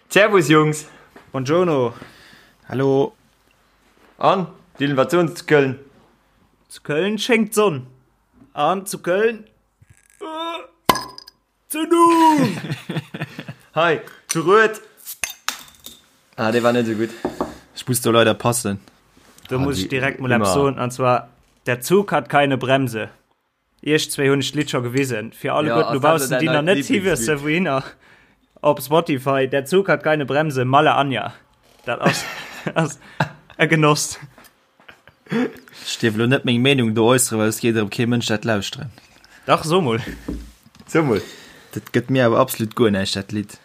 Servus Jungs! Buongiorno! Hallo! An, Dylan, wat soen se zu Köln? Zu Köln schéngt d'Sonn. An zu Köln. Zündung! Hei, zu Rued. Ah, dee war net esou gutt. Ech muss do leider passen. Do muss ech direkt mol eppes soen, an zwar, Der Zug hat keine Bremse. Iech zwéi hunn ech d'Lidd scho gewisen. Fir alleguerten dobaussen, déi nach net hi wësse wouhinner, op Spotify, Der Zug hat keine Bremse, Malle Anja. Dat ass, ass e Genoss. Ech dierf elo net meng Meenung do äusseren, well et geet erëm kee Mënsch dat lauschteren. Dach, so mol. So mol. Dat gëtt mir awer absolut guer näischt, dat Lidd.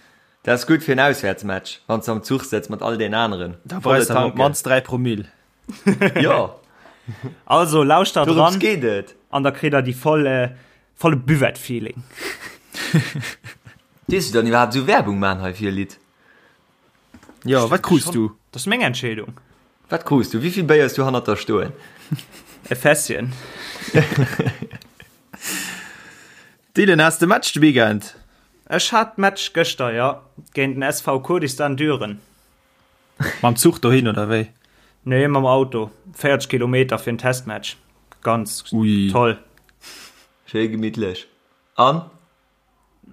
Dat ass gutt fir en Auswäertsmatch, wann s de am Zuch sëtz mat all den aneren. Da brauchs de awer op d'mannst 3 Promill. Jo. Also lauschtert Dorëms ran geet et. an da kritt der déi voll, volle Buvette-Feeling. Dierfs du dann iwwerhaapt esou Werbung man hei fir e Lidd? Jo, wat krus du? Dat ass meng Entscheedung. Wat krus du? Wéivill Béier hues du hannert der stoen? E Fässchen. Dylan, has de Match de Weekend? Ech hat Match gëschter, jo. Géint den SV Kurdistan Düren. Mam Zuch dohin oder wéi? Nee, mam Auto. 40 Kilometer fir en Testmatch. Ganz Ui. toll. Schéi gemittlech. An?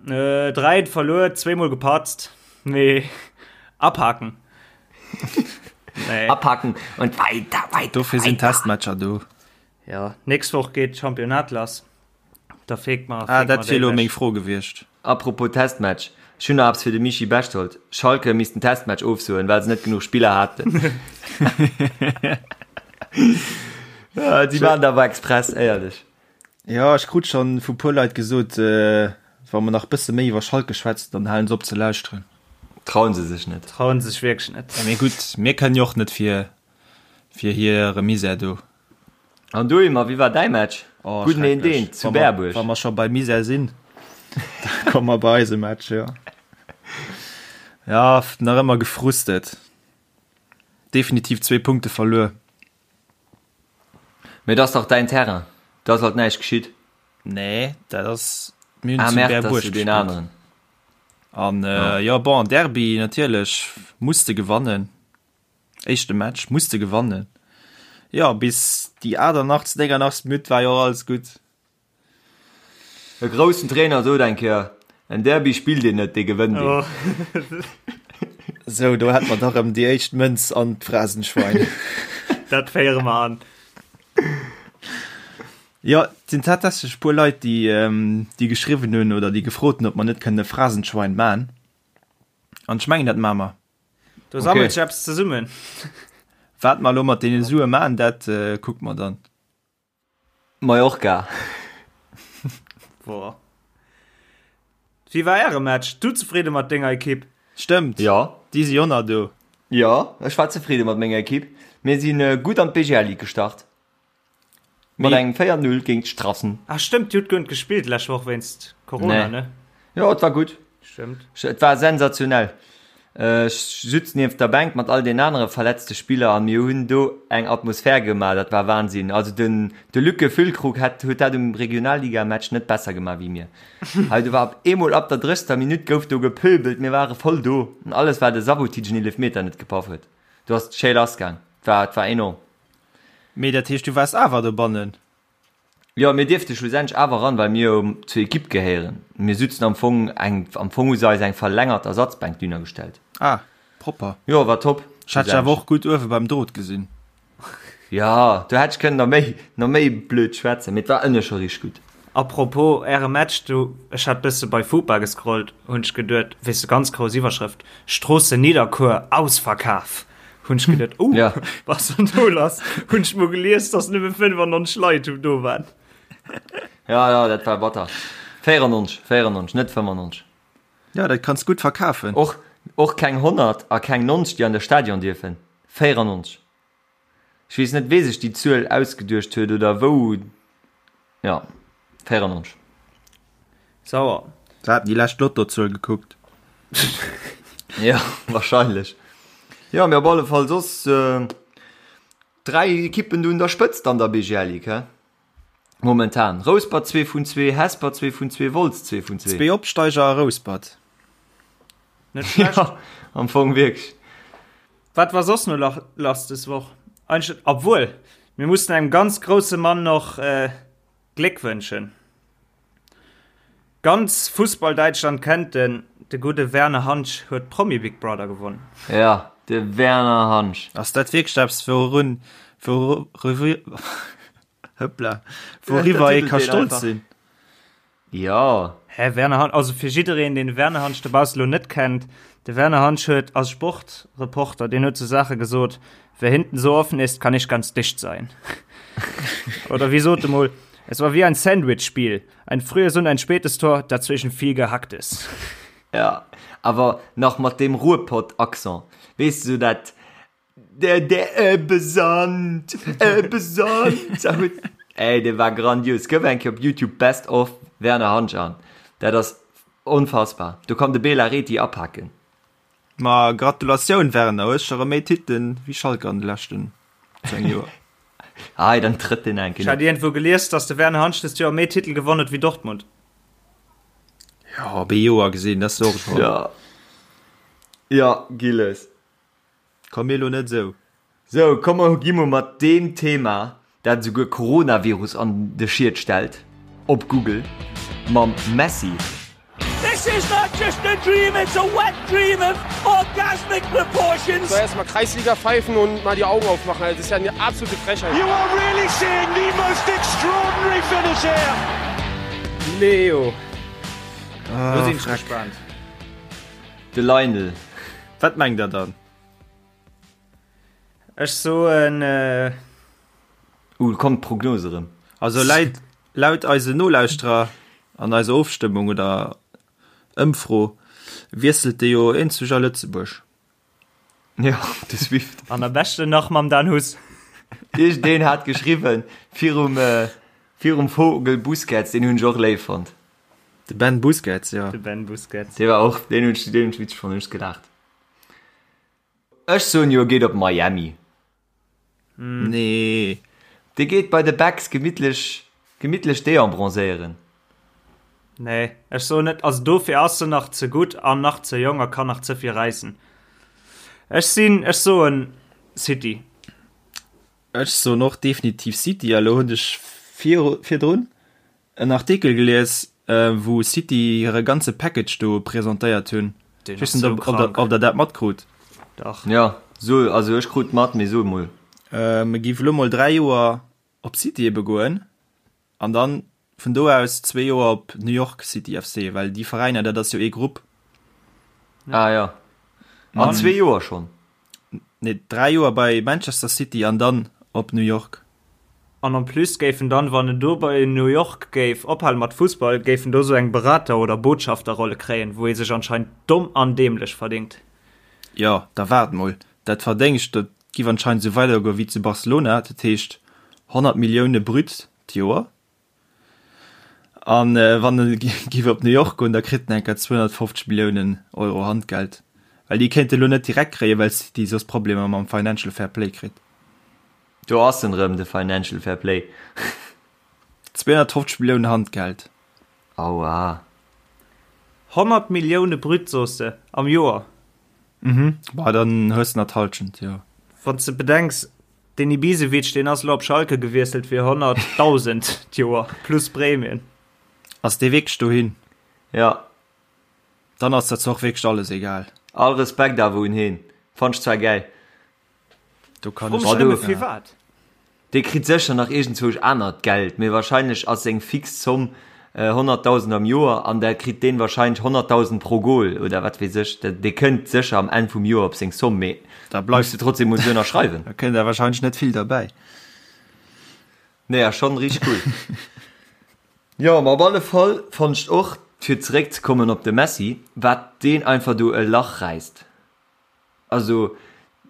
3 verluer, zweemol gepatzt, mee abhaken. Nee. Abhaken und weiter, weiter. Dofir sinn Testmatcher do. Ja, nächst Woch geet d'Championnat lass. Da feekt mer. Ah, dat wier elo meng Fro gewiescht. Apropos Testmatch, ech hunn nach eppes fir de Michi Bechtold. Schalke misst den Testmatch ofsoen, well se net genuch Spiller haten. Si maachen dat awer express, éierlech. Jo, ech krut schon vu puer Leit gesot, wa mer nach bësse méi iwwer Schalke schwätzen, dann halen se op ze lauschteren. Trauen se sech net. Trauen sech wierklech net. Mee gutt, mir kënnen jo och net fir fir hire Misär do. An du Ymer, wéi war däi Match? Oh, Gudden een schrecklech. deen zu Wa mer Berbuerg. wa mer scho bei Misär sinn, da komme mer bei eise Match, jo. Ja, nach ëmmer gefrustet. Definitiv zwee Punkte verluer. Mee et ass dach däin Terrain, do ass alt näischt geschitt. Nee, dat ass, mir hunn Ah zu merde, dat ass Berbuerg jo deen gespillt. aneren. An jo, bon, Derby natierlech muss de gewannen. Éischte Match muss de gewannen. Jo, bis déi 88., 89. Minutt war jo och alles gutt. E groussen Trainer sot eng Kéier, En Derby spillt een net, dee gewënnt een. Sou, do hätt mer dach erëm déi éischt Mënz an d'Phrasenschwein. Dat féiere mer an. Jo, et sinn tatsächlech e puer Leit, déi, déi geschriwwen hunn oder déi gefrot hunn, ob mer net kënnen e Phrasenschwein man. An ech mengen, dat maache mer. Do sammelt sech eppes zesummen. Wat mer elo mat deene Sue man, dat kucke mer dann. Mallorca. Boah. Wéi war äre Match? Du zefridde mat denger Ekipp? Stëmmt. Jo. Déi si jo nach do. Jo, ech war zefridde mat menger Ekipp. Mir si gutt an d'BGL Ligue gestart. Mat engem 4, 0 géint Strassen. Ah stëmmt, dir hutt guer net gespillt d'lescht Woch wéinst Corona, ne? Jo, et war gutt. Stëmmt. Et war sensationell. Ech sutz nieft der Bänk mat all den anere verletzte Spiller a mir hunn do eng Atmosphär gemaach, dat war Wahnsinn. Also den de Luc Füllkrug hätt huet dat um Regionalligamatch net besser gemaach wéi mir. Hei do war op eemol ab der 30. Minutt gouf do gepöbelt, mir ware voll do an alles well de Sabotic en Eelefmeter net gepaff huet. Do ass d'Schéi lass gaang, et war et war enorm. Mee dat heescht du waars awer dobannen? Jo, mir dierfte schlussendlech awer eran, well mir jo zur Ekipp gehéieren. Mir sutzen am Fong eng, am Fong hu se eis eng verlängert Ersatzbänk dunner gestellt. Ah, propper. Jo, war top. Ech hat dech awer och gutt uewe beim Drot gesinn. Jo, do hätt ech kënnen nach méi, nach méi blöd schwätzen, mee et war ënne scho richteg gutt. A propos äre Match do, ech hat bësse bei Fupa gescrollt, hunn ech geduet, weess de, ganz grouss Iwwerschrëft, Stroossen Nidderkuer, Ausverkaf! Hunn ech geduet, oh, ja. was an do lass? Hunn ech mol gelies, dass nëmme 95 Leit do waren. Ja, ja, dat war batter. 94, 94, net 95. Ja, dat kanns gutt verkafen. Och, och keng 100 a keng 90, déi an de Stadion dierfen. 94. Ech weess net, wee sech déi Zuel ausgeduecht huet oder wou. Ja, 94. Sauer. Se haten déi lescht Lottozuel gekuckt. Ja, wahrscheinlech. Jo, mee op alle Fall soss 3 Ekippen do un der Spëtzt an der BGL Ligue, hä? Momentan. Rouspert 2 vun 2, Hesper 2 vun 2, Wolz 2 vun 2. Zwee Opsteiger a Rouspert. Net schlecht. Ja, am Fong wierklech. Wat war soss no lach lass des Woch? Eigentlech, obwuel, mir mussen engem ganz grousse Mann noch äh, Gléck wënschen. Ganz Fussball-Däitschland kennt en, de gudde Werner Hansch huet Promi Big Brother gewonnen. Ja, de Werner Hansch. Ass dat wierklech eppes, wourun, wouriwwer, hëppla, wouriwwer ee ka stolz sinn? Jo. Hä, Werner Hansch, also fir jiddereen, deen de Werner Hansch dobausse lo net kennt, de Werner Hansch huet als Sportreporter, deen huet sou Saache gesot, Wer hinten so offen ist, kann nicht ganz dicht sein. Oder wéi sot e mol, Es war wie ein Sandwich-Spiel, ein frühes und ein spätes Tor, dazwischen viel Gehacktes. Ja, awer nach mat deem Ruhrpott-Accent, weess de, sou dat Der der Ebbe-Sand, Ebbe-Sand. Ey, dee war grandios. Gëff eng Kéier op YouTube Best of Werner Hansch an. Dat ass onfassbar. Do kann de Bela Rethy apaken. Ma Gratulatioun Werner, hues scho rem méi Titelen wéi Schalke an de leschten 10 Joer. Hei, dann trëtt deen eng Ech hat Kéier. iergendwou gelies, dass de Werner Hansch dëst Joer méi Titel gewonn huet wéi Dortmund. Jo, op ee Joer gesinn, dat ass och scho. Ja. Ja, Gilles. Komm mir lo net esou. Sou, komm mer gi mol mat deem Thema, dat esouguer Coronavirus an de Schiet stellt, op Google, mam Messi. This is not just a dream, it's a wet dream of orgasmic proportions. So erstmal Kreisliga pfeifen und mal die Augen aufmachen, also das ist ja eine absolute Frechheit. You are really seeing the most extraordinary finish here. Leo, lo sinn ech gespaant. De Lionel. Wat mengt der dann? Ech soen. Uh, kommt d'Prognose erëm. Also läit, laut eise Nolauschterer an eiser Ofstëmmung oder Ëmfro wiesselt de jo eenzeg a Lëtzebuerg. Jo, de Swift. An am beschten nach mam Dan Huss. Iergendeen hat geschriwwen virum, virum Vogel Busquets, deen hunn ech och léif fonnt. De Ben Busquets, jo. De Ben Busquets. Dee war och, deen hunn ech, deen hunn ech witzeg fonnt, hunn ech gelaacht. Ech soen jo, e geet op Miami. Nee. Dee geet bei de Becks gemittlech, gemittlech deembronzéieren. Nee, ech soen net, also dofir ass en nach ze gutt an nach ze jonk a kann nach ze vill räissen. Ech sinn, ech soen City. Ech soen och definitiv City. A lo hunn ech viru, virdrun En Artikel gelies wou City hire ganze Package do presentéiert hunn. Ech weess net ob der dat matkrut. Dach. Jo, so, also ech krut mat, mee so emol. E giff elo mol 3 Joer op City ebe goen an dann vun do aus zwee Joer op New York City FC, well déi Veräiner dat ass jo ee Grupp. Ah jo, an zwee Joer schonn? Nee, 3 Joer bei Manchester City an dann op New York. An en plus géif en dann, wann en do bei New York géif ophale mat Fussball, géif en do sou eng Berater oder Botschafterrolle kréien, wou ee sech anscheinend domm an dämlech verdingt. Jo, da waart mol, dat Verdéngscht, dat giff anscheinend sou weidergoe wéi zu Barcelona, dat heescht 100 Millioune brut d'Joer. An wann e giff op New York goen, da kritt en enker 250 Milliounen Euro Handgeld. Well déi kéint e lo net direkt kréien, well City soss Problemer mam Financial Fair Play kritt. Do ass en rëm, de Financial Fair Play. 250 Milliounen Handgeld. Aua. 100 Millioune brut, soos de, am Joer? Mhm, bah dann hues de nach d'Halschent, jo. Wann s de bedenks, Den Ibisevic, deen ass elo op Schalke gewiesselt fir 100.000 d'Joer plus Prämien. Ass dee wierklech dohin? Ja. Dann ass dat zwar och wierklech alles egal. All Respekt awer un heen. Fannt ech zwar gäil. Do kann Fro ech mech nëmme firwat. Dee kritt sécher nach iergendzwousch anert Geld, mee wahrscheinlech ass seng fix Zomm 100.000 am Joer an da kritt deen wahrscheinlech 100.000 pro Goal oder wat weess ech. Dee kënnt sécher am Enn vum Joer op seng Zomm, mee Da muss bleift de trotzdem mol sou ënnerschreiwen. Da kënnt der wahrscheinlech net vill derbäi. Nee, ass schonn richteg cool. Jo, ma op alle Fall fonnt ech och, fir zeréckzekommen op de Messi, wat deen einfach do e Lach räisst. Also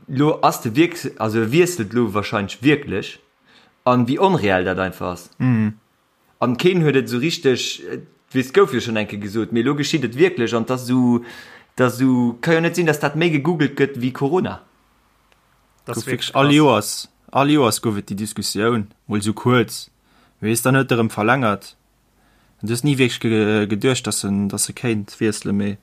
lo ass de wierk, also e wiesselt lo wahrscheinlech wierklech an wéi onreell dat einfach ass. An keen huet et esou richteg, weess gouf jo schonn eng Kéier gesot, mee elo geschitt et wierklech an 't ass esou, 't ass esou, ka jo net sinn, datt dat méi gegoogelt gëtt wéi Corona. Dat ass Gouf wierklech wierklech all krass. Joers, all Joers gouf et déi Diskussioun, mol esou kuerz, weess, dann huet e rëm verlängert. An du hues ni wierklech geduecht, dass en, dass e kéint wiesselen, mee.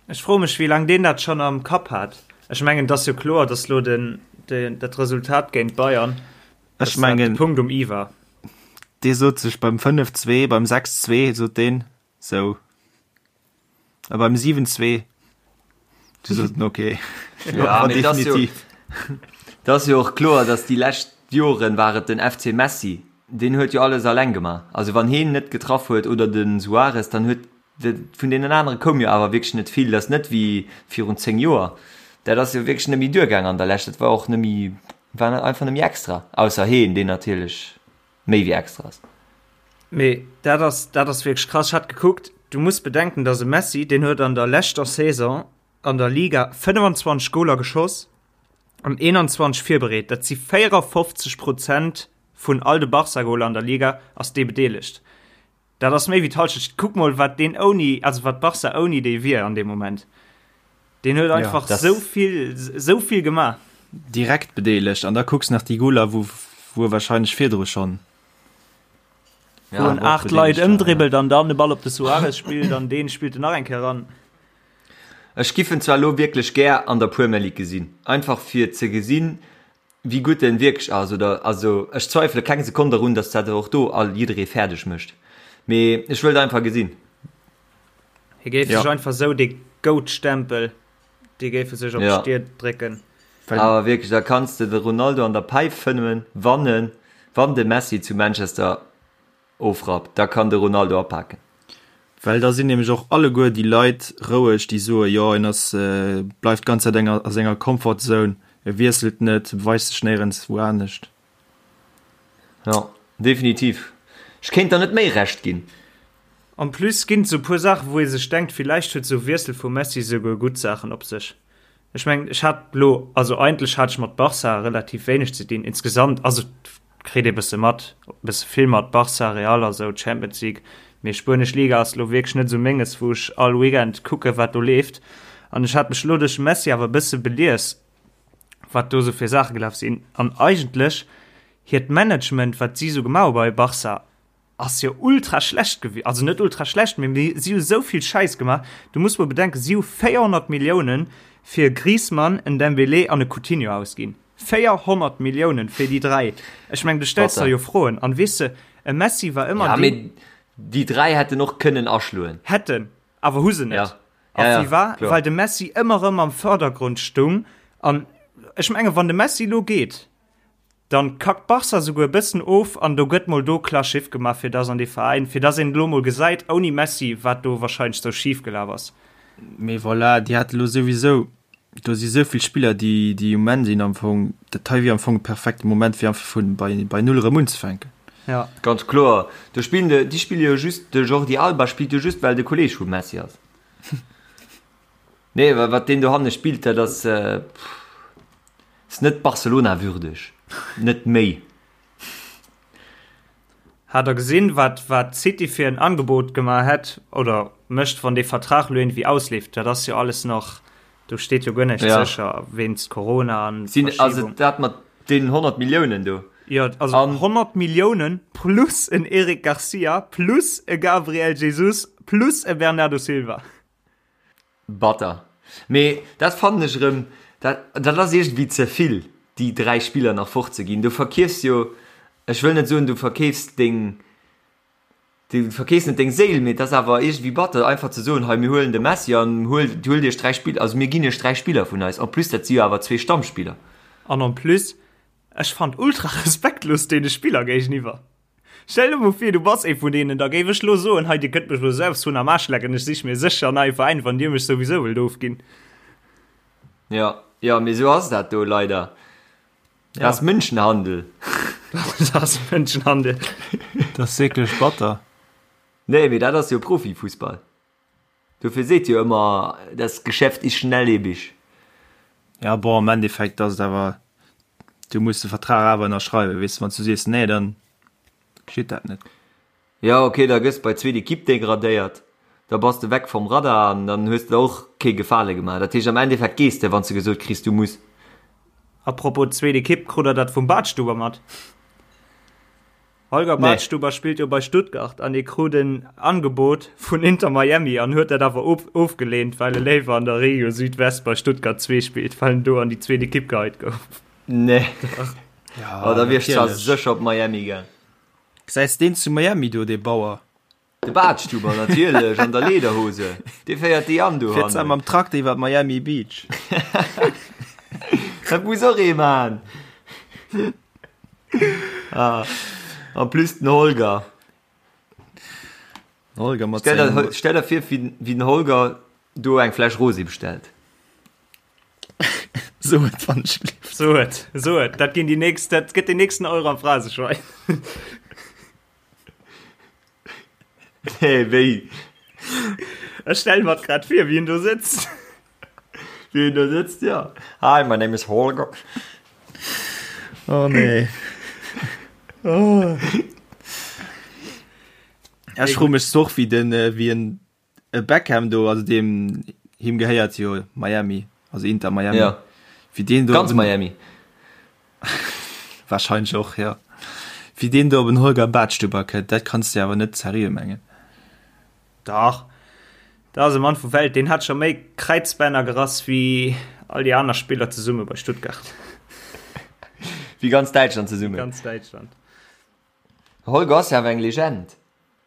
Ech froe mech, wéi laang deen dat schonn am Kapp hat. Ech mengen, et ass jo kloer, datt elo den, den, dat Resultat géint Bayern, Ech mengen, de Punkt um i war. Dee sot sech beim 5, 2, beim 6, 2 sot deen sou. A beim 7, 2 du sot en okay. Ja, mee dat ass jo, dat ass jo och kloer, datt déi lescht Joren war et den FC Messi, deen huet jo alles alleng gemaach. Also wann heen net getraff huet oder de Suarez, dann huet Vun deenen anere koum jo awer wierklech net vill. Dat ass net wéi virun 10 Joer. Dat ass jo wierklech net méi duergaang an der Lescht. Dat war och net méi, war einfach net méi extra. Ausser heen, deen natierlech méi wéi extra ass. Mee dat ass, dat ass wierklech krass. Ech hat gekuckt, du muss bedenken, dass e Messi, deen huet an der leschter Saison an der Liga 25 Goler geschoss an 21 virbereet. Dat si 54 Prozent vun all de Barca-Goler an der Liga ass dee bedeelegt. Dat ass méi wéi d'Halschent. Kuck mol wat deen ouni, also wat Barca ouni dee wier an deem Moment. Deen huet einfach ja, sou vill, sou vill gemaach. Direkt bedeelegt an da kucks nach déi Goler, wou wou e wahrscheinlech virdru schonn. Ja, wou en 8 Leit ëmdribbelt an dann de Ball op de Suarez spillt an deen spillt en nach eng Kéier ran. Ech giff en zwar lo wierklech gär an der Premier League gesinn, einfach fir ze gesinn, Wéi gutt en wierklech ass oder also ech zweifele keng Sekonn derun, dass dat och do all jidderee fäerdeg mécht, mee ech wëllt einfach gesinn. Hie géif sech einfach esou dee Goat-Stempel, dee géif e sech op d'Stier drécken. Awer wierklech, da kanns de de Ronaldo an der Päif fëmmen, wann en, wann de Messi zu Manchester Ofrappt, da kann de Ronaldo apaken. Well da sinn nämlech och alleguer déi Leit roueg, déi soe jo en ass, bleift d'ganz Zäit a senger Comfort Zone, e wiesselt net, e beweist sech néierens wou anescht. Jo, definitiv. Ech kéint der net méi Recht ginn. En plus ginn et sou puer Saachen, wou ee sech denkt, villäicht huet sou Wiessel vum Messi souguer gutt Saachen op sech. Ech mengen, ech hat lo, also eigentlech hat ech mat Barca relativ wéineg ze dinn insgesamt, also kritt ee bësse mat, bësse vill mat, Barca, Real a sou, Champions League, mee spuenesch Liga ass lo wierklech net sou menges, wou ech all Weekend kucke wat do leeft. An ech hat mech lo duerch de Messi awer e bësse belies, wat do sou fir Saache gelaf sinn. An eigentlech hiert Management, wat si sou gemaach hu bei Barca, Ass jo ultra schlecht gewi also net ultra schlecht, mee si hu sou vill Schäiss gemaach. Du muss mol bedenken, si hu 400 Milliounen fir e Griezmann, en Dembélé an e Coutinho ausginn. 400 Milliounen fir déi 3! Ech meng, du stells der jo Froen. An weess de, e Messi war ëmmer deen. Ja, mee déi 3 hätten och kënnen aschloen. Hätten, awer hu se net. Ja. A Ja, wie war? kloer. Well de Messi ëmmer erëm am Fördergrond stung. An ech menge, wann de Messi elo geet, Dann kackt Barca souguer e bëssen of an do gëtt mol do klar Schiff gemaach fir dass an dee Veräin, fir dass een elo mol gesäit ouni Messi wat do wahrscheinlech sou schif gelaf ass. Mee voilà, déi hate lo souwisou, do si sou vill Spiller déi déi um Enn sinn am Fong, dat hei wier am Fong e perfekte Moment fir einfach vun bei bei Null erëm unzefänken. Ja. Ganz kloer, do spillen de, déi spille jo just, de Jordi Alba spillt jo just well de Kolleeg vum Messi ass. Nee, wat deen dohanne spillt, dat ass, pff. Ass net Barcelona würdeg. Net méi. Hat der gesinn wat wat City fir en Angebot gemaach hätt oder mécht wann dee Vertrag lo iergendwéi ausleeft? Dat ass jo alles nach, do steet jo guer näischt Ja. sécher wéinst Corona an Sinn also Verschiebung. dat mat deenen 100 Milliounen do. Jo, also An 100 Milliounen plus en Eric Garcia plus e Gabriel Jesus plus e Bernardo Silva. Batter. Mee dat fannen ech erëm, dat, dat ass iergendwéi ze vill, déi 3 Spiller nach fortzeginn. Du verkeefs jo, ech wëll net soen, du verkeefs deng, du verkeefs net deng Séil, mee et ass awer iergendwéi batter, einfach ze soen, hei mir huelen de Messi an huelt, huelt iech 3 Spiller, also mir ginn iech 3 Spiller vun eis. En plus, dat si jo awer zwee Stammspiller. An en plus, ech fand ultra respektlos deene Spiller géigeniwwer. Stell der mol vir, du bass ee vun deenen, da géif ech lo soen, hei dir kënnt mech lo selbst hunn am Aarsch lecken, ech sich mir sécher en neie Veräin, wann dir mech souwisou wëllt ofginn. Jo, jo, mee esou ass dat do leider. Dat ass Mënschenhandel. Dat ass Mënschenhandel. Dat ass wierklech batter. Nee, mee dat ass jo Profifussball. Dofir seet jo ëmmer, das Geschäft ist schnelllebig. Ja, bon, am Endeffekt ass et awer, du muss de Vertrag awer ënnerschreiwen, weess de, wann s du sees nee, dann geschitt dat net. Ja, ok, da gëss bei zweet Equipe degradéiert, da bass de weg vom Radar an dann hues de der och kee Gefale gemaach. Dat heescht, am Endeffekt gees de, wann s de gesot kriss, du muss. A propos zweet Equipe, krut der dat vum Badstuber mat? Holger Badstuber spillt jo bei Stuttgart an hie krut en Angebot vun Inter Miami an huet dat awer ofgeleent, well e léiwer an der Regio Südwest bei Stuttgart 2 spillt, well en do an déi zweet Ekipp geheit gouf. Nee. Ja, oh, da wier ech zwar sécher op Miami gaang. Gesäis deen zu Miami do, dee Bauer? De Badstuber natierlech an der Lederhose, dee féiert déi an do. Fiert zwar mam Trakter iwwer Miami Beach. Dat muss och ee man. Ah, en plus den Holger. Holger mat Stell der, stell der vir, wéi, wéi den Holger do eng Fläsch Rosé bestellt. So et wann ech lief. So et, so et. Dat ginn déi nächst, dat gëtt den nächsten Euro am Phraseschwein. Nee, wéi? Ech stelle mer grad vir, wéi en do sëtzt. Wéi en do sëtzt, ja. Hi, my name is Holger. Oh nee. Oh. Ech froe mech och, wéi den, wéi en E Beckham do, also deem him gehéiert jo Miami, also Inter Miami. Ja. Wéi deen do Ganz Miami. Wahrscheinlech och, ja. Wéi deen do op en Holger Badstuber kënnt, dat kanns de awer net seriö mengen. Dach, dat ass e Mann vu Welt, deen hat scho méi Kräizbänner gerass wéi all déi aner Spiller zesumme bei Stuttgart. Wéi ganz Däitschland zesummen. Ganz Däitschland. Holger ass jo awer eng Legend.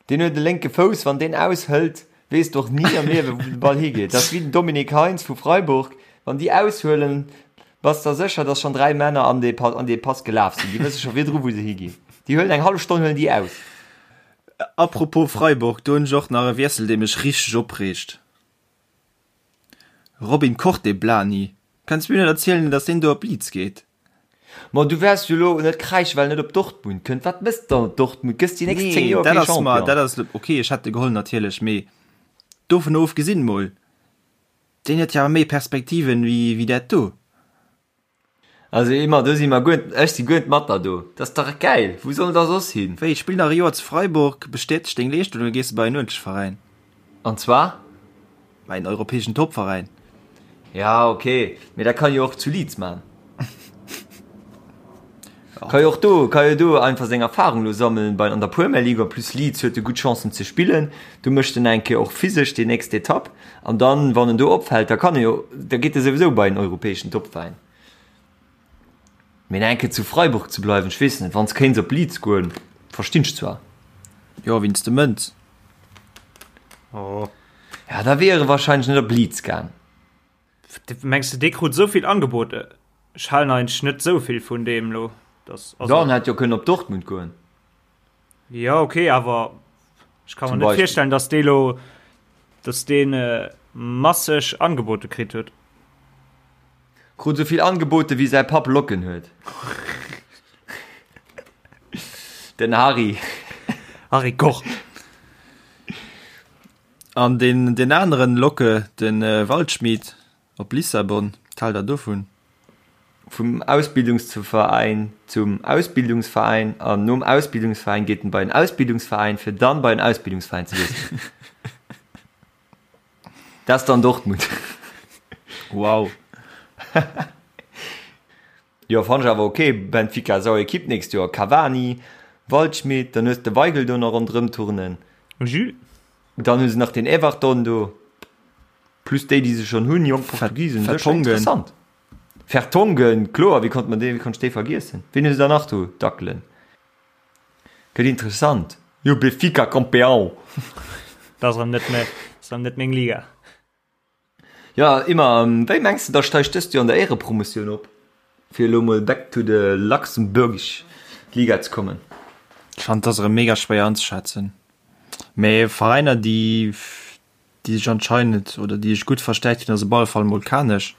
Deen huet e lénke Fouss, wann deen aushëlt, weess de och ni am Liewe wou de Ball higeet. Dat ass wéi den Dominique Heintz vu Freiburg, wann déi aushuelen, bass der sécher, datt schonn 3 Männer an dee an dee Pass gelaf sinn. Déi wësse scho virdru wou se higinn. Déi huelen eng hallef Stonn huelen déi aus. Apropos Freiburg, do hunn ech och nach e Wiessel dee mech richteg opreegt. Robin Koch, dee Blani, kanns mir net erzielen, datt deen do op Leeds geet? Ma du wäers jo lo net kräischen, well en net op Dortmund kënnt. Wat mëss de dann op Dortmund? Gëss déi nächst 10 Nee, Joer dat kee ass mer, Champion. dat ass ok, ech hätt e geholl natierlech, mee dovun ofgesinn mol, deen huet jo awer méi Perspektiven wéi wéi dat do. Also Emma, do si mer guer, ech si guer net mat der do. Dat ass dach gäil, wou soll en da soss hin? Wéi, spill nach e Joer zu Freiburg, bestäteg deng Leeschtung, da gees de bei en uerdentlech Veräin. An zwar? Bei en europäeschen Topveräin. Ja, ok, mee dat kann jo och zu Leeds man. Ka jo och do, ka jo do einfach seng Erfahrung lo sammeln bei an der Premier League. En plus Leeds huet e gutt Chancen ze spillen. Do mécht en eng Kéier och physesch déi nächst Etapp. An dann, wann en do opfält, da kann e jo, da geet e souwisou bei en europäeschen Topveräin. Mee eng Kéier zu Freiburg ze bleiwen, ech weess net, wann s kéints op Leeds goen, verstinn ech zwar. Jo, wéinst de Mënz. Oh. Ja, da wier e wahrscheinlech net op Leeds gaang. Mengs de dee krut esou vill Angebote? Ech halen eigentlech net esou vill vun deem lo. Dass, also, Ja, en hätt jo kënnen op Dortmund goen. Ja, okay, awer ech kann Zum mer net Beispill. virstellen, dass dee lo, dass deen äh, masseg Angebote kritt huet. Krut esou vill Angebote wéi säi Papp Locken huet. Den Harry. Harry Koch. An deen, deen aneren Locke, den Waldschmied op Lissabon, wat haalt der dovun? Vum Ausbildungsveräin zum Ausbildungsveräin an nom Ausbildungsveräin geet en bei en Ausbildungsveräin, fir dann bei en Ausbildungsveräin ze wiesselen. Dat ass dann Dortmund. Wow. Jo fann ech awer ok, Benfica sauer Equipe nächst Joer, Cavani, Waldschmidt, dann hues de Weigl do nach ronderëm turnen. Jules. Dann hu se nach den Everton do, plus déi déi se schonn hunn, jonk Portugisen, dat ass scho Vertonghen. interessant. Vertonghen, kloer, wéi konnt man dee, wéi konnt ech dee vergiessen? Wien hu se da nach do dackelen? Gëtt interessant. Jo Benfica Campeão! Dat ass erëm net méi, ass erëm net meng Liga. Jo, Imma, wéi mengs de da steigt dëst Joer an der Éierepromotioun op, fir elo mol back to the luxembourgish Liga ze kommen? Ech fannen et ass erëm mega schwéier anzeschätzen, mee Veräiner déi déi sech anscheinend oder déi sech gutt verstärkt hunn ass op alle Fall mol Kanech.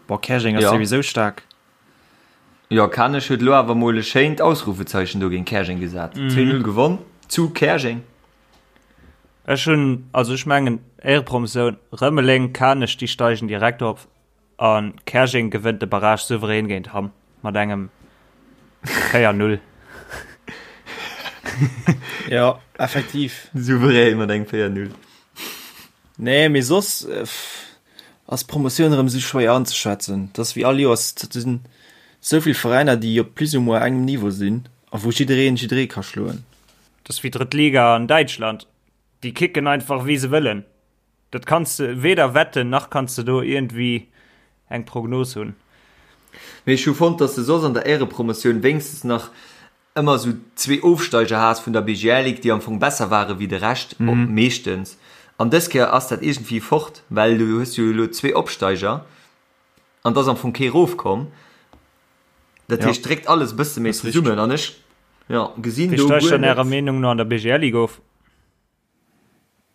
Bon Käerjeng ass Jo. souwisou staark. Jo, Kanech huet elo awer mol e schéint Ausrufezeichen do géint Käerjeng gesat, 2, 0 gewonn zu Käerjeng. Ech hunn, also ech mengen Éierepromotioun, Rëmeleng, Kanech, déi steigen direkt op a Käerjeng gewënnt de Barrage souverän géint Hamm mat engem 4, 0. Jo, effektiv. Souverän mat engem 4, 0. Nee, mee soss ass d'Promotioun erëm esou schwéier anzeschätzen. Et ass wéi all Joers, et sinn esou vill Veräiner, déi op plus ou moins engem Niveau sinn. A wou jiddereen jidderee ka schloen. Dat ass wéi drëtt Liga an Däitschland. Déi kicken einfach wéi se wëllen. Dat kanns de weder wetten, nach kanns de do iergendwéi eng Prognos hunn. Mee ech hu fonnt, dass de soss an der Éirepromotioun wéinstens nach ëmmer esou zwee Ofsteiger has vun der BGL Ligue, déi am Fong besser ware wéi de Rescht, meeschtens. An dës Kéier ass dat iergendwéi fort, well du hues jo elo zwee Opsteiger an et ass am Fong kee rofkomm. Dat heescht, dréckt alles e bësse méi zesummen an ech, jo, gesinn do guer net. Wie steigt dann Ärer Meenung no an der BGL Ligue of?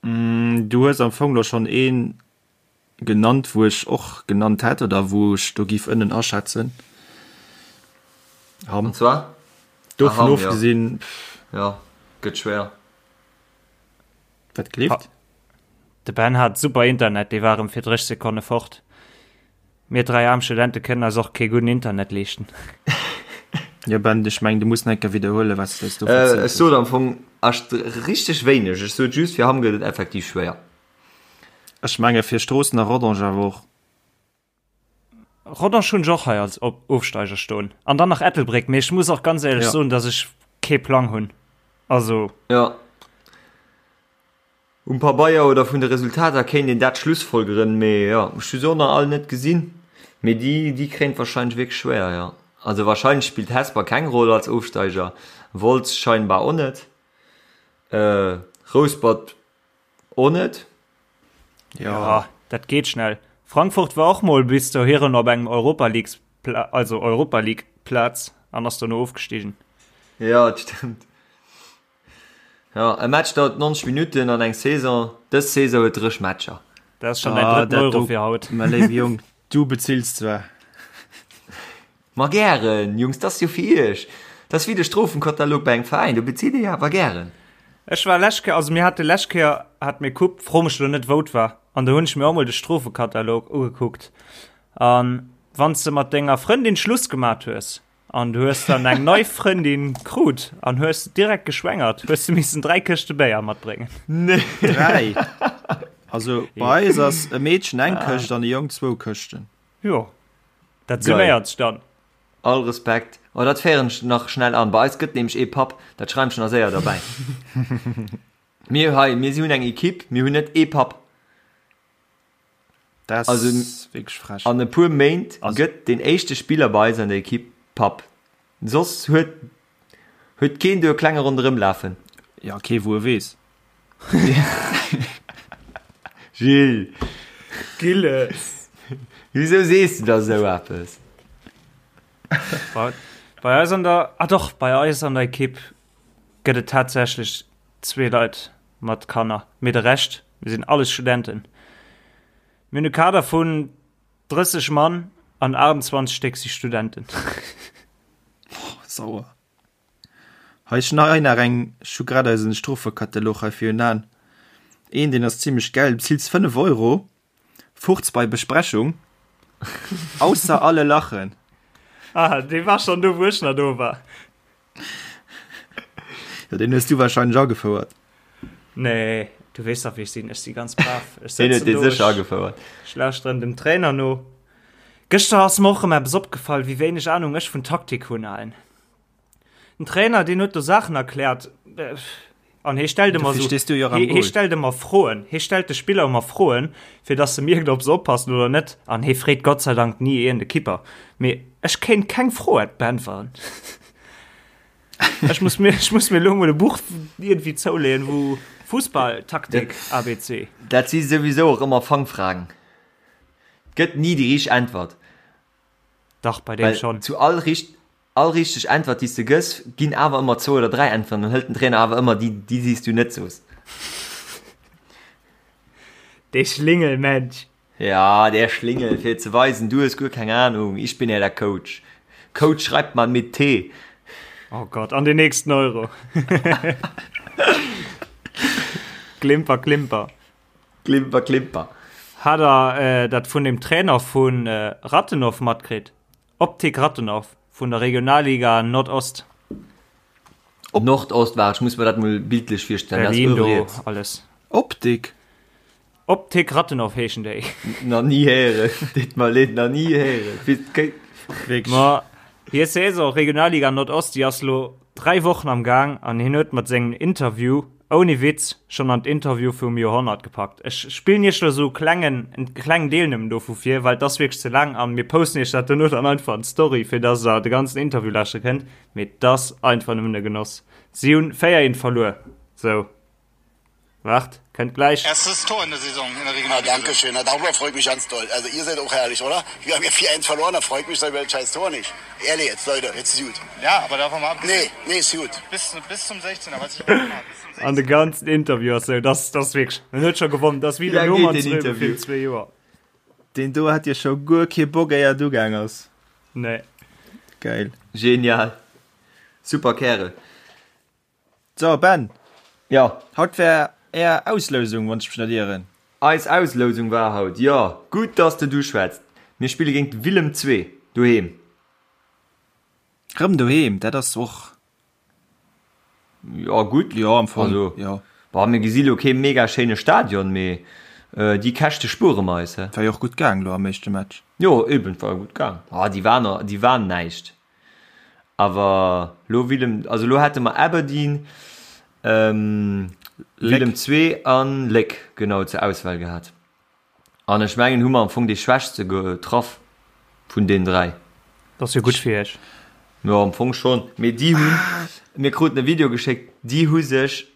Du hues am Fong lo schonn ee genannt, wou ech och genannt hätt oder wou ech do giff ënnen aschätzen. Hamm. An zwar? Dovun ah, ofgesinn. Ja, gëtt schwéier. Wat gleeft? De Ben hat super Internet, dee war erëm fir 30 Sekonne fort. Mir 3 aarm Studente kënnen eis och kee gudden Internet leeschten. Jo Ben, ech mengen du muss nach eng Kéier widderhuelen, wat s de eis do Äh, verzielt ech sot am Fong echt richteg wéineg. Ech sot just, fir Hamm gëtt et effektiv schwéier. Ech menge fir Stroossen a Rodange awer och. Rodange hunn ech och hei als Ofsteiger stoen. An dann nach Ettelbréck, mee ech muss och ganz éierlech Ja. soen, datt ech kee Plang hunn. Also. Jo. Um Pabeier oder vun de Resultater kéint een dat schlussfolgeren, mee jo, ech hu se och nach all net gesinn, mee déi déi kréien et wahrscheinlech wierklech schwéier, jo. Also wahrscheinlech spillt Hesper keng Roll als Ofsteiger, Wolz scheinbar och net, Rouspert och net. Jo, dat geet schnell. Frankfurt war och mol bis dohiren op engem Europa Leagues, also Europa League Plaz an ass dono ofgestigen. Jo, dat stëmmt. Jo, e Match dauert 90 Minutten an eng Saison, dës Saison huet 30 Matcher. Dat ass schon däin drëtten Euro fir haut. Mä léiwe Jong, du bezills zwar. Ma gären, Jungs, dat ass jo fir iech. Dat ass wéi de Strofenkatalog bei engem Veräin, do bezilt ee jo awer gären. Ech war lescht Kéier, also mir hate lescht Kéier hate mir Coupe, fro mech elo net wou et war, an do hunn ech mir och mol de Strofekatalog ugekuckt. An wann s de mat denger Frëndin Schluss gemat hues, An du hues dann eng nei Frëndin krut an hues direkt geschwängert, hues du missen 3 Këschte Béier matbréngen. Nee. 3? Also bei eis ass e Meedchen eng Këscht an e Jong zwou Këschten. Jo, dat summéiert sech dann. All Respekt. Oh, dat féieren ech nach schnell an. Bei eis gëtt nämlech ee Papp, dat schreiwen ech nach séier derbäi. Mir hei, mir si hunn eng Equipe, mir hunn net ee Papp. Dat Also, ass wierklech frech. An e puer Méint gëtt deen éischte Spiller bei eis an der Ekipp Papp. Soss huet huet keen do e Klenge ronderëm lafen. Ja, kee wou e weess. Gilles! Gilles! Wisou sees du da sou eppes? Bei, bei eis an der, ah doch, bei eis an der Ekipp gëtt et tatsächlech zwee Leit mat Kanner, mee de Rescht, mir sinn alles Studenten. Mir hunn e Kader vun 30 Mann an 28 Stéck si Studenten. Sauer. Hei, ech hunn hei nach eng, ech hu grad eisen Strofekatalog hei virun Aen. Een, deen ass zimmlech gäil, du bezills 5 Euro, Furz bei Besprechung, ausser alle lachen. Ah, dee war schonn do, wou ech nach do war. Ja, den hues du wahrscheinlech agefouert. Nee, du weess dach wéi ech sinn, ech si ganz brav. Ech Den huet dee sécher agefouert. Ech lauschteren dem Trainer no. Gëschter ass mer och erëm eppes opgefall, wéi wéineg Ahnung ech vun Taktik hunn, Alain. Den Trainer, deen huet do Saachen erkläert an hie stellt ëmmer Dofir esou, stees du jo och am hie, hie Goal. stellt ëmmer Froen, hie stellt de Spiller ëmmer Froen, fir dass se mierkt, ob se oppassen oder net. An hie freet Gott sei Dank ni een de Kipper. Mee ech kéint keng Fro beäntweren. Ech muss mir, ech muss mir elo mol e Buch iergendwéi zouleeën, wou Fussballtaktik ABC. Dat si souwisou och ëmmer Fangfragen. Et gëtt ni déi richteg Äntwert. Dach, bei deem Well schonn. zu all richt, all richteg Äntwert, déi s de gëss, ginn awer ëmmer zwou oder dräi Äntweren. Dann hëlt den Trainer awer ëmmer déi, déi, déi s du net soos. Dee Schlingelmensch. Ja, der Schlingel, fir ze weisen, du hues guer keng Ahnung, ich bin ja der Coach. Coach schreibt man mit T. Oh Gott, an den nächsten Euro. Klimper, Klimper. Klimper, Klimper. Hat der dat vun dem Trainer vu Rathenow matkritt? Optik Rathenow vun der Regionalliga Nordost. Nordost war, ech muss mer dat mol bildlech virstellen. Berlin do alles. Optik? Optik Rathenow heeschen déi. Nach ni héieren, deet mer leed, nach ni héieren. Ma hir Saison Regionalliga Nordost, déi ass lo. 3 Wochen am Gaang an hien huet mat sengem Interview, ouni Witz, schonn an d'Interview vum Joerhonnert gepackt. Ech spillen iech lo sou klengen, en klengen Deel nëmmen dovu vir, well et ass wierklech ze laang an mir posten iech dat dono dann einfach an d'Story, fir dass der de ganzen Interview lauschtere kënnt. Mee et ass einfach nëmmen e Genoss. Si hunn 4, 1 verluer. Sou. Waart, kënnt gläich. Erstes Tor in der Saison in der Regionalliga. Ah, danke schön. Na, darüber freue ich mich ganz doll. Also ihr seid auch herrlich, oder? Wir haben ja 4-1 verloren, da freue ich mich über das scheiß Tor nicht. Ehrlich jetzt, Leute, jetzt ist gut. Ja, aber davon mal abgesehen. Nee, nee, ist gut. Bis, bis zum 16er, was ich gemacht Bis zum 16er. An de ganzen Interview ass sou, das, das wierklech, en huet scho gewonnen, das wéi de Roman Zröbe virun zwee Joer. Deen do hat jo scho guer kee Bock éier et ugaang ass. Nee. Geil. Genial. Super Kärel. So, Ben. Jo. Haut war är Auslousung, wann ech mech net ieren. Eis Auslousung war haut, jo. Gutt, dass de du schwätzt. Mir spille géint Willem II doheem. Rëm doheem, dat ass och. Jo, gutt. Jo, am Fong, also, jo. Bon, mir gesi lo kee mega schéine Stadion, mee déi Käschte spuere mer eis, he. War jo och gutt gaang lo am éischte Match. Jo, eben, war jo gutt gaang. Ah, déi waren, déi waren näischt. Awer lo Willem, also lo hätte mer Aberdeen, Willem II an Léck genau zur Auswahl gehat. An ech mengen hu mer am Fong dee schwächste getraff vun deenen 3. Dat ass jo gutt fir iech. Jo am Fong schonn, mee déi hunn, mir kruten e Video geschéckt, déi hu sech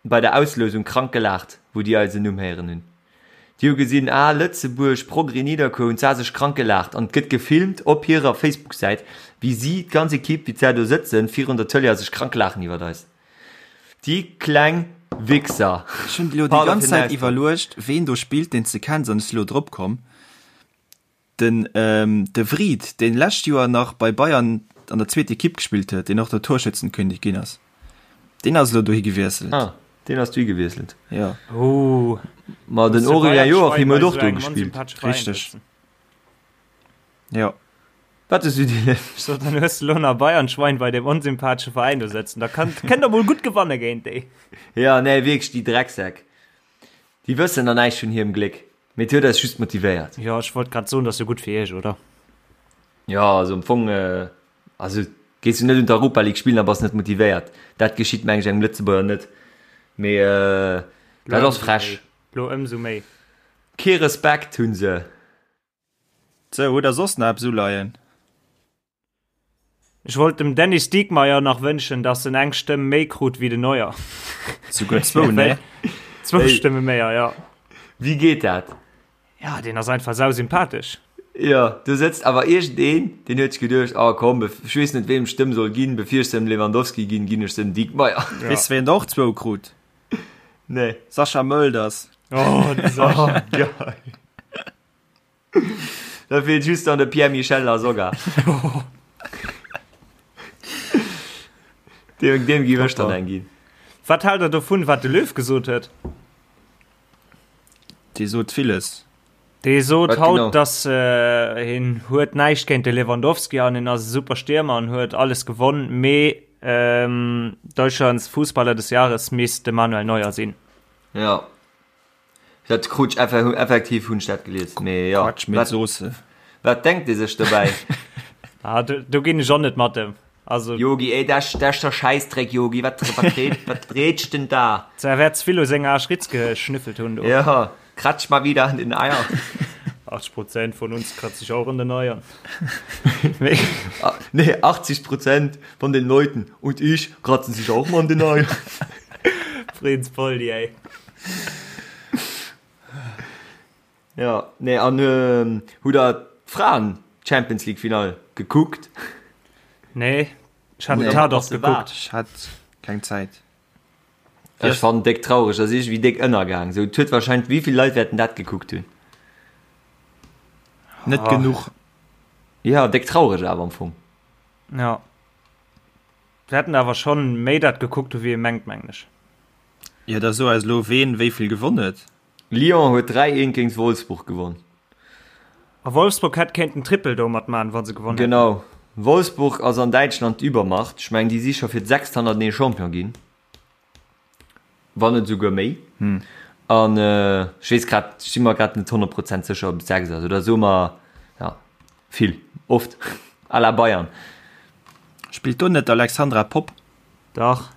bei der Auslousung krank gelaacht, wou déi eisen Numm héieren hunn. Déi hu gesinn, ah, Lëtzebuerg, Progrès Nidderkuer, hunn s'a sech krank gelaacht. An et gëtt gefilmt op hirer Facebook-Säit, wéi si, d'ganz Ekipp, wéi s'ä do sëtzen virun der Tëlee a sech krank laachen iwwert eis. Déi kleng Wichser. Ech hunn elo déi ganz Zäit iwwerluecht, ween do spillt, deen s de kenns, an ech si lo drop komm. Den De Wriedt, deen lescht Joer nach bei Bayern an der zweet Ekipp gespillt huet, deen och der Torschützenkönig ginn ass, deen ass elo dohi gewiesselt. Ah, deen ass dohi gewiesselt. Jo. Oh. Ma den Aurélien Joachim huet och do gespillt. Richteg. Jo. Wat hues du dir Ech sot, dann hues de lo nach Bayern-Schwein bei deem onsympathesche Veräin do sëtzen. Da kann, kënnt der mol gutt gewanne géint déi. Ja, nee, wierklech, déi Drecksäck. Déi wëssen nach näischt vun hirem Gléck, mee et huet eis just motivéiert. Jo, ech wollt grad soen, dat ass jo gutt fir iech, oder? Jo, also am Fong, also gees du net un d'Europa League spillen a bass net motivéiert. Dat geschitt meng ech engem Lëtzebuerger net. Mee dat ass frech. Lo ëmsou méi. Kee Respekt hunn se. Sou, hutt der soss nach eppes uleien? Ech wollt dem Dennis Diekmeier nach wënschen, dass en eng Stëmm méi krut wéi den Neuer. Souguer zwou, ne? Zwou Stëmme méi, ja. Wéi geet dat? Ja, deen ass einfach sausympathesch. Jo, do sëtzt awer iergendeen, deen huet sech geduecht, oh komm, ech weess net, weem ech d'Stëmm soll ginn, bevir ech se dem Lewandowski ginn, ginn ech se dem Diekmeier. Weess de, wien der och zwou krut? Nee. Sascha Mölders. Oh, de Sascha. Oh, geil. Da feelt just dann de Pierre-Michel Lasogga. Deem, deem giff ech dann eng ginn. Wat haalt der dovun, wat de Löw gesot huet? Dee sot villes. Dee sot Wat haut, genau? dass äh, hien huet näischt géint de Lewandowski an hien ass e super Stiermer an huet alles gewonn, mee ähm, Deutschlands Fußballer des Jahres misst de Manuel Neuer sinn. Ja. Dat krut ech effektiv hunn ech dat gelies. Mee jo, Quatsch mit Soße. Wat denkt ee sech dobäi? Ah, do, do ginn ech och net mat em. Also. Yogi, ey, dat ass der Schäissdreck, Yogi, wat, wat, red, wat redst denn da? Er wäert ze vill u senger Aschritz geschnüffelt hunn do. Ja, kratsch mal wieder an den Eier. 80 Prozent von uns kratzt sich auch an den Eiern. Nee, nee 80 Prozent von den Leuten und ich kratzen sich auch mal an den Eiern. Prinz Poldi, ey. Ja, nee, an ähm, hutt der d'Fraen Champions League Finall gekuckt? Nee, ech hat Nee, den Tatort ass de gekuckt. Ech hat keng Zäit. Ech fannen déck traureg, ass iergendwéi déck ënnergaang. Sou, et huet wahrscheinlech, wéi vill Leit wäerten dat gekuckt hunn? Net Ah. genuch. Ja, déck traureg awer am Fong. Ja. Wäerten awer schonn méi dat gekuckt hu wéi ee mengt, mengen ech. Jo, da so eis elo ween wéi vill gewonn huet. Lyon huet 3, 1 géint Wolfsburg gewonn. A Wolfsburg hätt kéinten Triple domat man, wa se gewonn hätten. Genau. Wolfsburg ass an Däitschland d'Übermacht. Ech mengen déi si scho fir d'sechst hannertenee Champion ginn. Wann net esouguer méi. An ech weess grad, ech si mer grad net 100 Prozent sécher, ob et 6 ass oder soe mer, ja, vill, oft, à la Bayern. Spillt do net d'Alexandra Popp? Dach.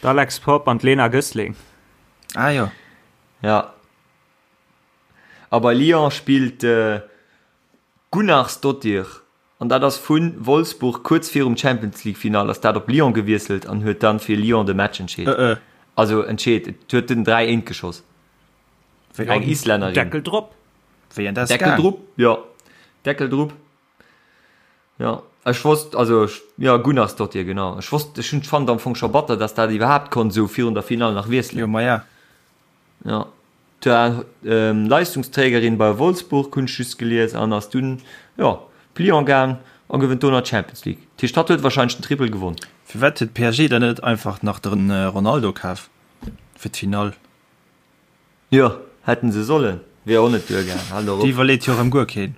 D'Alex Popp an d'Lena Gössling. Ah jo. Ja. A bei Lyon spillt d'Gunnarsdottir an dat ass vu Wolfsburg kuerz virum Champions League Finall ass dat op Lyon gewiesselt an huet dann fir Lyon de Match entscheet. Also entscheet, et huet den 3 eent geschoss. Eng Islännerin. Deckel drop. Wéi an dat Deckel drop, jo. Deckel drop. Jo, ech wosst, also ech, jo, Gunnarsdottir, genau. Ech wosst, ech hunn fand am Fong scho batter, dass dat iwwerhaapt konnt esou virun der Finall nach wiesselen. Jo, maja. Jo, d'war Leistungsträgerin bei Wolfsburg, hunn ech just gelies, an ass dunn, jo, op Lyon gaang a gewënnt do nach d'Champions League. Dat heescht, hatt huet wahrscheinlech den Triple gewonn. Firwat huet PSG dann net einfach nach de Ronaldo kaf fir d'Finall? Jo, hätten se sollen. Wier och net duergaang. Hal doch op. Déi iwwerleet jo erëm guer keen.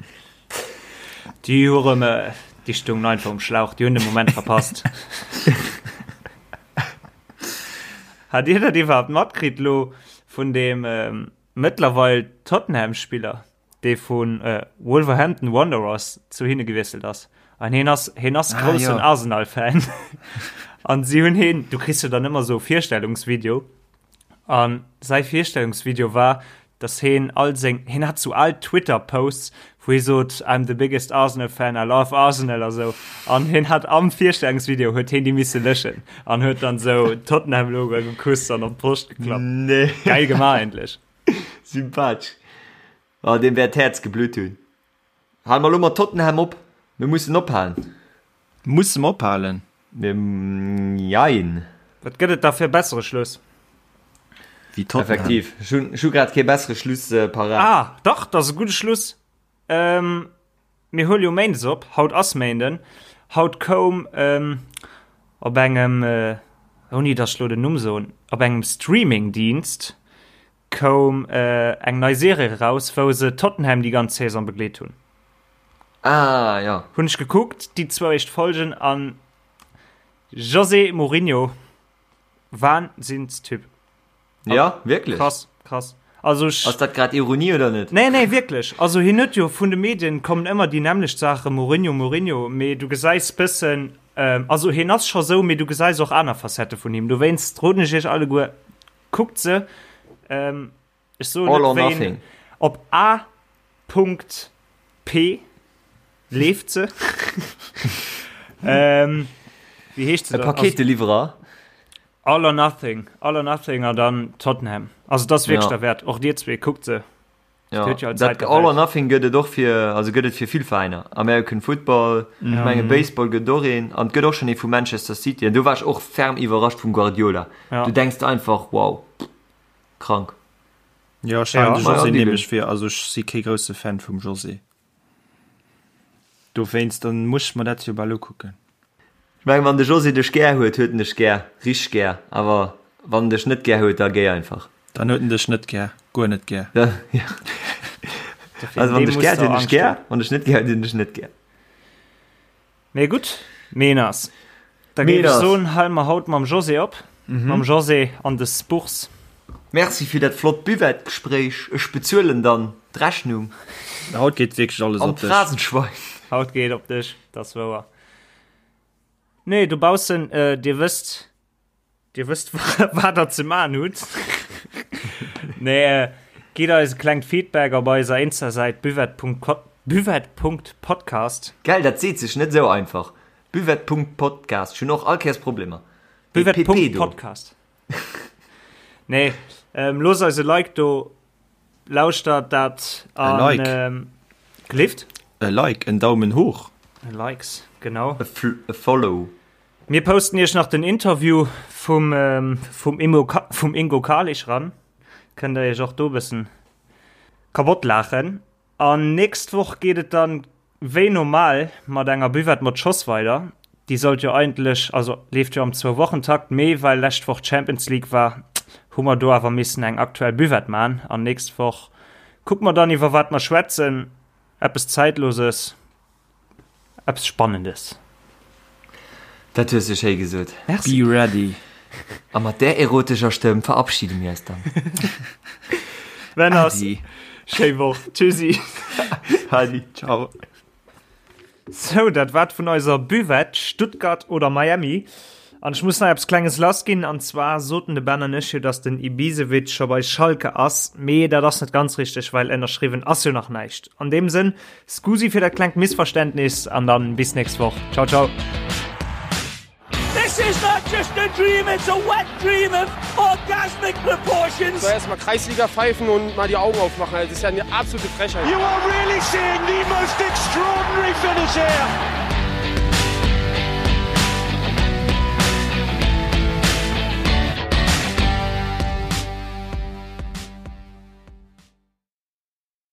Déi hu rëm, déi stoungen einfach um Schlauch, déi hunn de Moment verpasst. Hat Dir dat iwwerhaapt matkritt lo vun deem mëttlerweil Tottenham-Spiller, dee vu Wolverhampton Wanderers zu hinne gewiesselt ass? An hien ass, hien ass ah, groussen Arsenal-Fan. An si hunn hien, du kriss jo dann ëmmer sou Virstellungsvideo, An säi Virstellungsvideo war, dass heen all seng, heen hat sou al Twitter Posts, wou hee sot, I'm the biggest Arsenal fan, I love Arsenal a sou. An heen hat am Virstellungsvideo huet heen déi misse löschen an huet dann sou Tottenham Logo gekusst an op d'Broscht geklappt. Nee. Geil gemaach eigentlech. Sympathesch. Oh, deem wäert d'Häerz geblutt hunn. Hale mer elo mat Tottenham op? Mir mussen ophalen. Musse mer ophalen? Jein. Wat gëtt et da fir e bessere Schluss? Wéi Tottenham. Effektiv. Ech hunn, ech hu grad kee bessere Schluss parat. Ah, dach, dat ass e gudde Schluss. Mir huele jo méindes op. Haut ass Méinden. Haut koum op engem, ouni datt ech elo den Numm soen, op engem Streamingdienst koum eng nei Serie eraus, wou se Tottenham déi ganz Saison begleet hunn. Ah, ja. Hunn ech gekuckt, déi zwou éischt Folgen an José Mourinho, Wahnsinnstyp. Ja, wierklech? Krass, krass. Also ech. Ass dat grad Ironie oder net? Nee, nee, wierklech. Also hien huet jo vun de Medien kommen ëmmer déi nämmlecht Saachen, Mourinho, Mourinho, mee du gesäis bëssen, also hien ass scho sou, mee du gesäis och aner Facette vun him. Dowéinst roden ech iech alleguer, Kuckt se. Ähm, ech soen All net or wéi nothing. Op A. P. leeft se. ähm, wéi heescht se E dann? Paketeliwwerer. All or Nothing. All or Nothing an dann Tottenham. Also das ass wierklech Ja. derwäert. Och dir zwee, kuckt se. Ja, huet jo all dat Zäit der All or Welt. Nothing gëtt et och fir, also gëtt et fir vill Veräiner. American Football, ech menge Baseball gëtt et och een an et gëtt och schonn ee vu Manchester City an do war ech och ferm iwwerrascht vum Guardiola. Ja. Du denks der einfach, wow, krank. Jo, ech halen Ja. de Ma ja, José Dylan. nämlech fir, also ech si kee grousse Fan vum José. Dowéinst, dann muss ech mer dat jo bal ukucken. Ech mengen, wann de José dech gär huet, huet en dech gär, richteg gär. Awer wann en dech net gär huet, da géi einfach. Dann huet en dech net gär, guer net gär. Ja. Also wann dech gär huet, huet en dech gär, wann dech net gär huet, huet en dech net gär. Mee gutt, Meeners. Da géif ech soen, hale mer haut mam José op. Mam José an de Spurs. Merci fir dat flott Buvette-Gespréich. Ech bezuelen dann d'Rechnung. Haut geet wierklech alles An op dech. d'Phrasenschwein. Haut geet op dech, dat ass wouer. Nee, dobaussen, dir wësst, Dir wësst wat der ze man hutt. Nee, gitt eis e klengt Feedback op eiser Insta-Säit buvette.podcast. Gell, dat seet sech net esou einfach. Buvette.podcast. Ech hunn och all Kéiers Problemer. Dee PP do. Buvette.podcast. Nee, ähm, loosst eis e Like do, lauschtert dat an. E Like. Ähm, gelift? E Like, en Daumen hoch. E Likes, genau. E Follow. Mir posten iech nach den Interview vum vum Immo vum Ingo Kahlich ran. Kënnt der iech och do bëssen kabott laachen. An nächst Woch geet et dann wéi normal mat enger Buvette mat Schoss weider. Déi sollt jo eigentlech, also leeft jo am Zwou-Wochen-Takt, mee well lescht Woch Champions League war, hu mer do awer missen eng aktuell Buvette man. An nächst Woch kucke mer dann iwwer wat mer schwätzen. Eppes Zäitloses. Eppes Spannendes. Dat hues de schéi gesot. Merci. Be ready. A mat där erotescher Stëmm verabschide mir eis dann. Männers, Adi. schéi Woch. Tschüssi. Adi. Ciao. Sou, dat war et vun eiser Buvette, Stuttgart oder Miami. An ech muss nach eppes Klenges lass ginn, an zwar soten de Ben an ech jo, dass den Ibisevic scho bei Schalke ass, mee dat ass net ganz richteg, well ënnerschriwwen ass jo nach näischt. An deem Sënn, Scusi fir dat klengt Missverständnis an dann bis nächst Woch. Ciao, ciao. This is not just a dream, it's a wet dream of orgasmic proportions. So erstmal Kreisliga pfeifen und mal die Augen aufmachen. Das ist ja eine absolute Frechheit. You are really seeing the most extraordinary finish here.